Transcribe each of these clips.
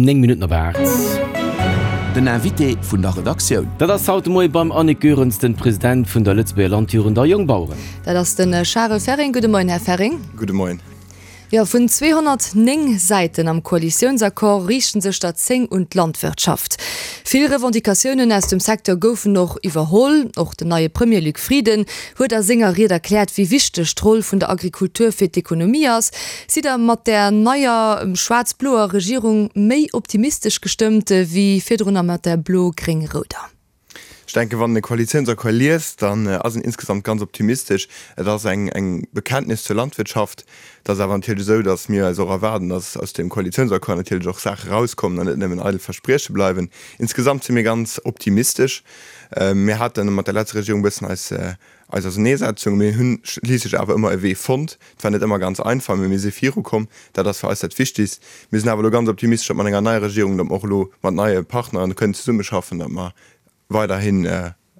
9 Minutten op 8. Den Invité vun der Redaktioun. Dat ass haut de Moie beim Annick Goerens, den President vun der Lëtzebuerger Landjugend a Jongbaueren. Dat ass de Charel Ferring. Gudde Moien, Här Ferring. Gudde Moien. Jo, vun 209 Säiten am Koalitiounsaccord riichten sech der 10 un d'Landwirtschaft. Vill Revendicatiounen aus dem Secteur goufen och iwwerholl. Och den neie Premier Luc Frieden huet a senger Ried erkläert, wéi wichteg d'Roll vun der Agrikultur fir d'Ekonomie ass. Sidd Der mat där neier schwaarz-bloer Regierung méi optimistesch gestëmmt wéi virdrunner mat där blo-gréng-rouder? Ech denken, wann een e Koalitiounsaccord liest, dann ass een insgesamt ganz optimistesch. Et ass eng Bekenntnis zur Landwirtschaft. Et ass awer natierlech esou, datt mir eis och erwaarden, datt aus deem Koalitiounsaccord natierlech och Saache erauskommen an net nëmmen eidel Versprieche bleiwen. Insgesamt si mir ganz optimistesch. Mir hate mat der letzter Regierung e bëssen eis eis Auserneesetzung. Mir hunn schliisslech awer ëmmer e Wee fonnt. Et war net ëmmer ganz einfach, mee mir si virukomm. Dat ass fir eis dat Wichtigst. Mir sinn awer elo ganz optimistesch, datt mat enger neier Regierung, datt mer och elo mat neie Partneren kënnen zesummeschaffen, datt mer weiderhin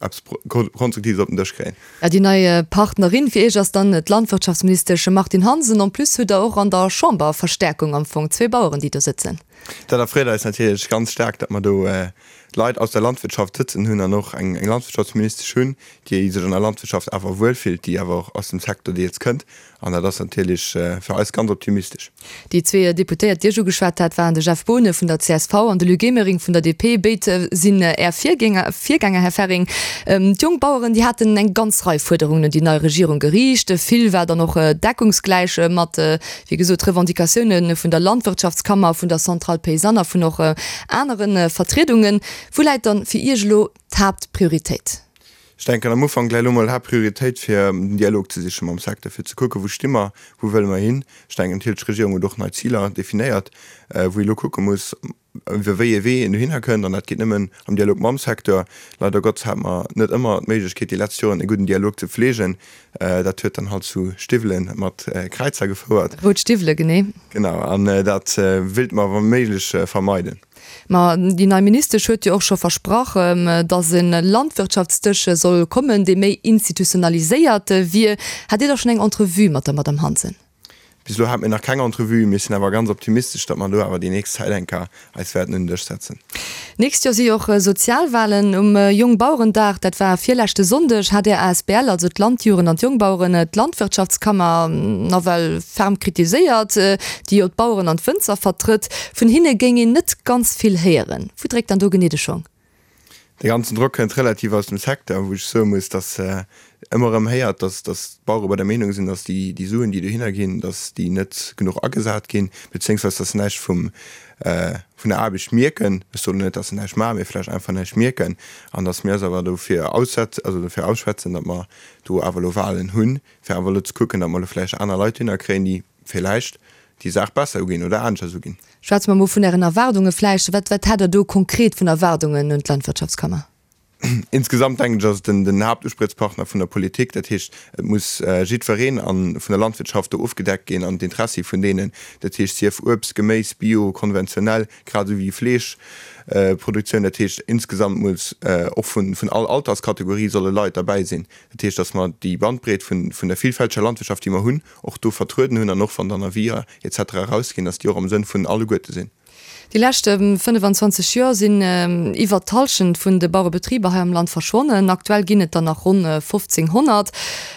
eppes Konstruktives op den Dësch kréien. Ja, déi nei Partnerin fir Iech ass dann d'Landwirtschaftsministesch Martine Hansen. En plus hutt Der och an der Chamber Verstärkung am Fong, zwee Baueren, déi do sëtzen. Dat erfreet eis natierlech ganz staark, datt mer do Leit aus der Landwirtschaft sëtzen hunn an och eng Landwirtschaftsministesch hunn, déi sech an der Landwirtschaft awer wuel fillt, déi awer och aus dem Secteur deels kënnt. An dat ass natierlech fir eis ganz optimistesch. Déi zwee Deputéiert, déi ech ugeschwat hat, waren de Jeff Boonen vun der csv an de Luc Emering vun der DP. Béid sinn Är Virgänger, Här Ferring. D'Jongbaueren, déi haten eng ganz Rei Fuerderungen un déi nei Regierung geriicht. Vill war dann och deckungsgläich mat wéi gesot, Revendicatioune vun der Landwirtschaftskammer, vun der Centrale Paysanne a vun och anere Vertriedungen. Wou läit dann fir Iech elo d'Haaptprioritéit? Ech denken am Ufank läit elo mol d'Haaptprioritéit fir den Dialog ze siche mam Secteur, fir ze kucken, wou sti mer, wou wëlle mer hin. Ech denken natierlech, d'Regierung huet och nei Ziler definéiert, wou ee elo kucke muss, iwwer wéi ee Wee een dohinner kënnt, an dat geet nëmmen am Dialog mam Secteur. Leider Gottes hate mer net ëmmer d'Méiglechkeet déi letzt Joren e gudden Dialog ze pflegen. Dat huet dann halt zu Stiwwele mat Kräizer gefouert. Rout Stiwwele, genee. Genau, an dat wéilte mer wa méiglech vermeiden. Ma déi nei Ministesch huet jo och scho versprach, datt e Landwirtschaftsdësch soll kommen, dee méi institutionaliséiert wier. Hat Dir da schonn eng Entrevue mat der Madamm Hansen? Bis elo hate mir nach keng Entrevue. Mir sinn awer ganz optimistesch, datt mer do awer déi nächst Zäit eng Kéier eis wäerten un den Dësch setzen. D'nächst Joer si jo och Sozialwahlen. Um Jongbauerendag, dat war virleschte Sonndeg, hat Är asbl, also d'Landjugend an d'Jongbaueren, d'Landwirtschaftskammer nawell ferm kritiséiert, déi jo d'Baueren an d'Wënzer vertrëtt. Vun hinne géing een net ganz vill héieren. Wou dréckt dann do genee de Schong? Dee ganzen Drock kënnt relativ aus dem Secteur, wou ech soe muss, datt ëmmer erëm héiert, datt d'Bauere bei der Meenung sinn, datt déi Suen, déi dohinner ginn, datt déi net genuch agesat ginn, beziéungsweis datt se näischt vum, vun der Aarbecht mierken. Ech soen net, datt se näischt maachen, mee vläicht einfach näischt mierken. An datt mir eis awer dofir aussetzen, also dofir ausschwätzen, datt mer do awer elo Wahlen hunn, fir awer elo ze kucken, datt mer elo vläicht aner Leit dohinner kréien, déi villäicht déi Saach besser uginn oder aneschters uginn. Schwätze mer mol vun Ären Erwaardunge vläicht. Wat, wat hätt Der do konkret vun Erwaardungen un d'Landwirtschaftskammer? Insgesamt denken ech, ass et den, den Haaptuspriechspartner vun der Politik. Dat heescht, et muss jiddwereen a vun der Landwirtschaft do ofgedeckt ginn an d'Intressi vun deenen, dat heescht sief Uebst, Geméis, Bio, konventionell, grad esou wéi Fleeschproduktioun. Dat heescht, insgesamt muss och vun, vun all Alterskategorie solle Leit derbäi sinn. Dat heescht, datt mer déi Bandbreet vun, vun der vielfälteger Landwirtschaft, déi mer hunn, och do vertrueden hunn an och wann dann Avis et cetera erausginn, dass déi och am Sënn vun alleguerte sinn. Déi lescht 25 Joer sinn iwwert d'Hallschent vun de Bauerebetriber hei am Land verschwonnen. Aktuell ginn et der nach ronn 1.500.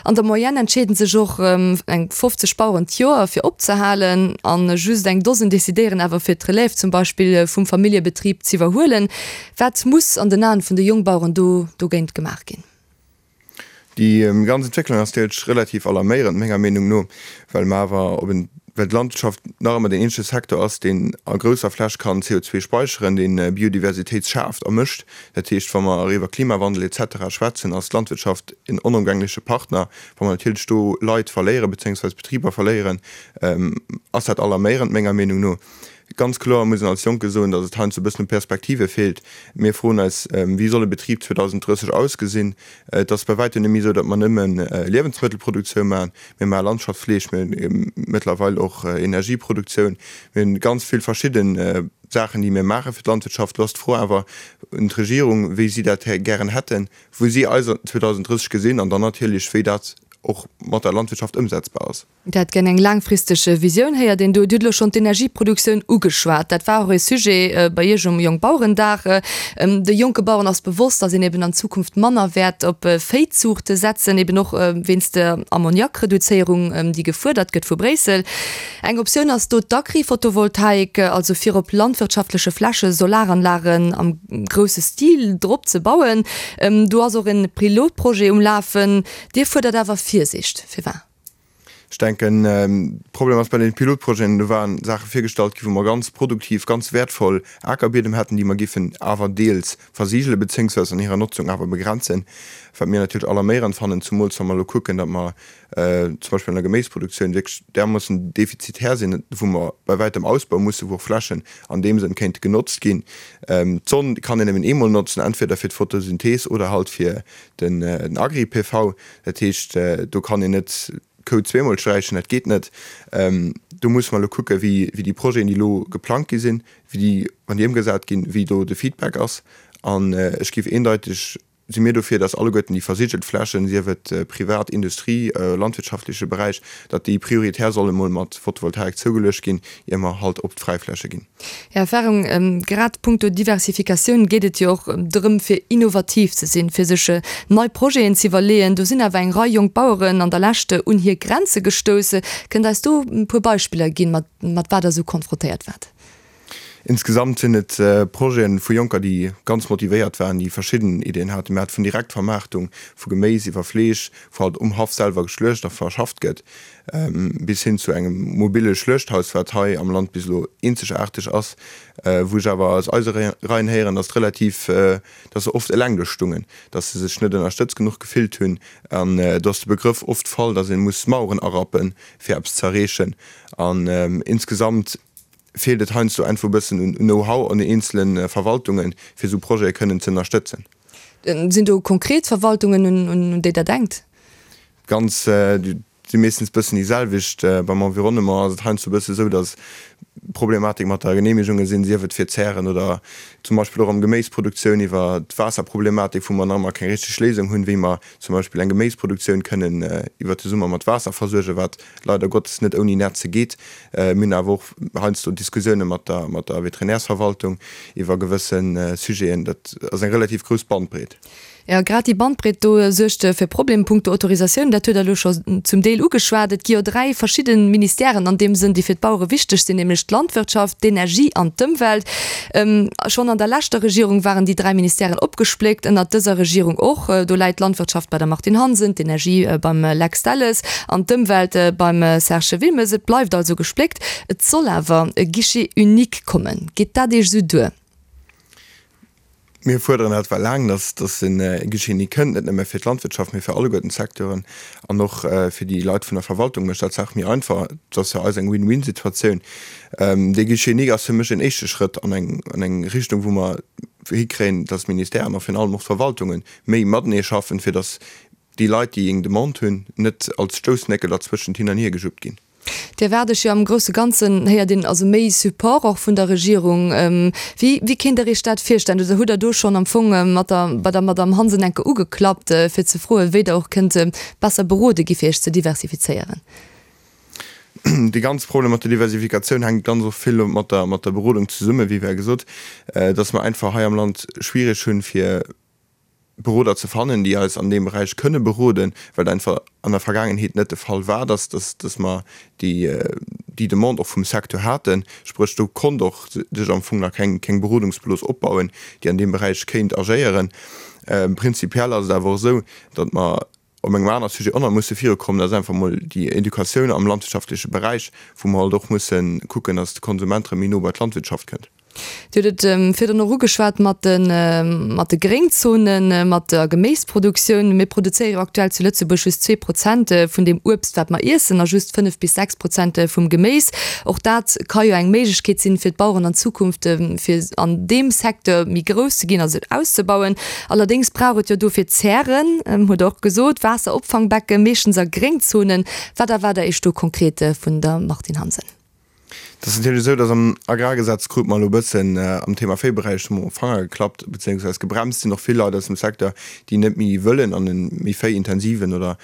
An der Moyenne entscheeden sech och eng 50 Baueren d'Joer fir opzehalen an just eng Dosen decidéieren awer fir d'Relève zum Beispill vum Familljebetrib z'iwwerhuelen. Wat muss an den Aen vun de Jongbaueren do dogéint gemaach ginn? Déi ganz Entwécklung ass deels relativ alarméierend, menger Meenung no, well mer awer op en, well d'Landwirtschaft nach ëmmer deen eenzege Secteur ass, deen a grousser Fläch kann CO2 speicheren, deen Biodiversitéit schaaft a mécht. Dat heescht, wa mer iwwer Klimawandel et cetera schwätzen, ass d'Landwirtschaft en onëmgängleche Partner. Wa mer natierlech do Leit verléieren, bezéiungsweis Betriber verléieren, ass dat alarméierend, menger Meenung no. Ganz kloer muss een als Jonke soen, datt et heiansdo e bëssen u Perspektive feelt. Mir froen eis, Wéi soll e Betrib 2030 ausgesinn? Et ass bei wäitem net méi esou, datt mer nëmme Liewensmëttelproduktioun maachen. Mir maache Landschaftsfleeg, mir hunn mëttlerweil och Energieproduktioun. Mir hunn ganz vill verschidde Saachen, déi mir maache fir d'Landwirtschaft. Lo ass d'Fro awer un d'Regierung, wéi si dat gären hätten, wou si eis 2030 gesinn an dann natierlech, wéi dat. och mat der Landwirtschaft ëmsetzbar ass. Dat gär eng laangfristeg Visioun héiert een do. Dir hutt elo schonn d'Energieproduktioun ugeschwat. Dat war och ee Sujet bei Iech um Jongbauerendag. De jonke Baueren ass bewosst, datt een eben an Zukunft manner wäert op Véizuuchte setzen, eben och wéinst der Ammoniakreduzéierung, déi gefuerdert gëtt vu Bréissel. Eng Optioun ass do d'Agri-Photovoltaik, also fir op landwirtschaftleche Fläche Solaranlagen am grousse Stil drop ze bauen. Do ass och e Pilotprojet um Lafen. Dir fuerdert awer Virsiicht. Firwat? Ech denken, de Problem ass bei deene Pilotprojeten, do waren Saache virgestallt ginn, wou mer ganz produktiv, ganz wäertvoll Akerbiedem hätten, déi mer géifen awer deels versigele bezéiungsweis an hirer Notzung awer begrenzen, wat mir natierlech alarméierend fannen, zumools wa mer elo kucken, datt mer zum Beispill an der Geméisproduktioun wierklech därmoossen defizitär sinn, wou mer bei wäitem ausbaue mussen, wou och Flächen an deem Sënn kéinte genotzt ginn. D'Sonn kann een nëmmen eemol notzen, entweder fir d'Photosynthees oder halt fir den Agri-PV. Dat heescht, do kann een net d'Kou zweemol sträichen, dat geet net. Do musse mer elo kucken, wéi déi Projeten, déi elo geplangt gi sinn, wéi déi, wann déi ëmgesat ginn, wéi do de Feedback ass. An ech géif eendeiteg, si mir dofir, datt alleguerten déi versigelt Flächen, sief et privat, Industrie, landwirtschaftleche Beräich, datt déi prioritär solle mol mat Photovoltaik zougeluecht ginn, ier mer halt op d'Fräifläche ginn. Här Ferrong, grad punkto Diversifikatioun geet et jo och drëm, fir innovativ ze sinn, fir sech nei Projeten ze iwwerleeën. Do sinn awer eng Rei jonk Baueren an der Lescht un hir Grenze gestouss. Kënnt Der eis do e puer Beispiller ginn, mat mat wat Der esou konfrontéiert waart? Insgesamt sinn et Projete vu Jonker, déi ganz motivéiert waren, déi verschidden Ideeën haten. Mir hate vun Direktvermaartung vu Geméis iwwer Fleesch, wou halt um Haff selwer geschluecht a verschafft gëtt, bis hin zu engem mobile Schluechthaus, wat hei am Land bis elo eenzegaarteg ass, wou ech awer aus eise Reien héieren, datt relativ, datt se oft eleng do stungen, datt se sech net ënnerstëtzt genuch gefillt hunn an do ass de Begrëff oft fall, datt ee muss Maueren arappen, fir eppes ze erreechen. An insgesamt feelt et heiansdo einfach e bëssen un Know-how an den eenzele Verwaltungen, fir esou Projete kënnen ze ënnerstëtzen. Sinn do konkret Verwaltungen, un déi Der denkt? Ganz, si meeschtens bëssen déi selwecht. Beim Environnement ass et heiansdo e bësse sou, datt Problematik mat der Geneemegunge sinn, sief et fir Zären oder zum Beispill och am Geméisproduktioun iwwer d'Waasserproblematik, wou mer nach ëmmer keng richteg Léisung hunn, wéi mer zum Beispill eng Geméisproduktioun kënnen iwwer de Summer mat Waasser versuergen, wat leider Gottes net ouni Netze geet. Mir hunn awer och heiansdo Diskussioune mat der mat der Veterinärsverwaltung iwwer gewësse Sujeten. Dat ass eng relativ grouss Bandbreet. Jo, grad déi Bandbreet do suergt fir Problemen punkto Autorisatioun. Dat huet Der elo scho zum Deel ugeschwat. Et gi jo 3 verschidde Ministèren an deem Sënn, déi fir d'Bauere wichteg sinn, nämlech d'Landwirtschaft, d'Energie an d'Ëmwelt. Schonn an der leschter Regierung waren déi 3 Ministèren opgespléckt, ënnert dëser Regierung och. Do läit d'Landwirtschaft bei der Martine Hansen, d'Energie beim Lex Delles an d'Ëmwelt beim Serge Wilmes. Et bleift also gespléckt. Et soll awer e Guichet unique kommen. Geet dat Iech esou duer? Mir fuerderen dat well laang, dass dass e Guichet unique kënnt, net nëmme fir d'Landwirtschaft, mee fir alleguerten d'Secteuren an och fir déi Leit vun der Verwaltung mécht dat d'Saach méi einfach. Et ass fir eis eng Win-win-Situatioun. Dee Guichet unique ass fir mech en éischte Schrëtt an eng an eng Richtung, wou mer hikréien, dass d'Ministèren a virun allem och d'Verwaltunge méi matenee schaffen, fir dass déi Leit, déi eng Demande hunn, net als Stoussnéckel derzwëschent hin an hiergejuppt ginn. Dir erwaart Iech jo am grousse Ganzen, héiert een, also méi Support och vun der Regierung. Wéi, wéi kéint Der Iech dat virstellen? Oder hutt Der do schonn am Fong mat der, bei der Madamm Hansen enke ugeklappt, fir ze froen, wéi Der och kënnt besser berode gi fir Iech ze diversifizéieren? Dee ganze Problem mat der Diversifikatioun hänkt ganz och vill mat der, mat der Berodung zesummen, wéi war gesot, dass mer einfach hei am Land schwierig hunn, fir Beroder ze fannen, déi eis an deem Beräich kënne beroden, well et einfach an der Vergaangenheet net de Fall war, dass, dass, dass mer déi, déi Demande och vum Secteur haten. Spréch, do konnt och sech am Fong nach keng, keng Berodungsblos opbauen, déi an deem Beräich kéint agéieren. Prinzipiell ass et awer och esou, datt mer op engem anere Sujet och nach musse virukommen, dat ass einfach emol déi Educatioun am landwirtschaftleche Beräich, wou mer halt och musse kucken, datt de Konsument erëm méi no bei d'Landwirtschaft kënnt. Dir hutt et virdrun och ugeschwat mat de, mat de Gréngzonen, mat der Geméisproduktioun. Mir produzéiere jo aktuell zu Lëtzebuerg just 2 Prozent vun deem Uebst, wat mer iessen, a just 5 bis 6 Prozent vum Geméis. Och dat ka jo eng Méiglechkeet sinn, fir d'Baueren an Zukunft, fir an deem Secteur méi grouss ze ginn a sech auszebauen. Allerdéngs brauch et jo dofir Zären, hutt Der och gesot, Waasseropfangbecken, meeschtens a Gréngzonen. Wat erwaart Der Iech do konkret vun der Martine Hansen? Et ass natierlech esou, datt am Agrargesetz krute mer elo e bëssen am Thema Véiberäich hu mer um Fanger geklappt, bezéiungsweis gebremst sinn och vill Leit aus dem Secteur, déi net méi wëllen an e méi véiintensiven oder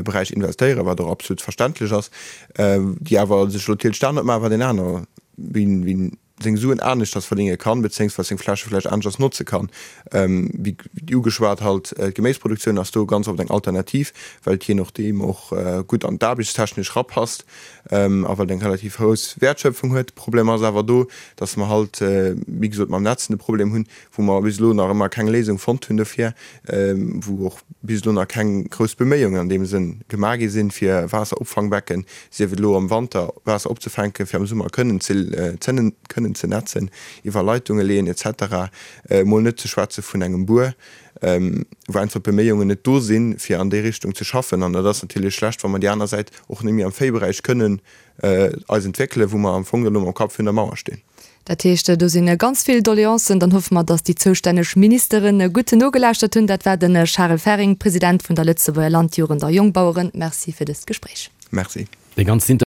Beräich investéieren, wat och absolut verständlech ass, déi awer sech elo natierlech dat net maachen, wat een aner, wien seng Suen aneschters verdénge kann, bezéiungsweis seng Fläche vläicht aneschters notze kann. Wéi ugeschwat halt, d'Geméisproduktioun ass do ganz oft eng Alternativ, well et jee nodeem och gutt an d'aarbechtstechnesch rapasst a well et eng relativ grouss Wäertschöpfung huet. De Problem ass awer do, dass mer halt, wéi gesot, mam Netzen de Problem hunn, wou mer bis elo nach ëmmer keng Léisung fonnt hunn dofir, wou och bis elo nach keng grouss Beméiungen an deem Sënn gemaach gi sinn, fir Waasseropfangbecken, sief et elo am Wanter Waasser opzefänken, fir am Summer kënnen ze kënnen ze netzen, iwwer Leitunge leeën et cetera, emol net ze schwätze vun engem Buer, wou einfach d'Beméiungen net do sinn, fir an déi Richtung ze schaffen. An dat ass natierlech schlecht, wa mer déi aner Säit och net méi am Véiberäich kënnen eis entwéckelen, wou mer am Fong elo mam Kapp virun der Mauer stinn. Dat heescht, do si ganz vill Doleancen. Dann hoffe mer, datt déi zoustänneg Ministere gutt nogelauschtert hunn. Dat war de Charel Ferring, President vun der Lëtzebuerger Landjugend a Jongbaueren. Merci fir dëst Gespréich. Merci. Dee ganzen.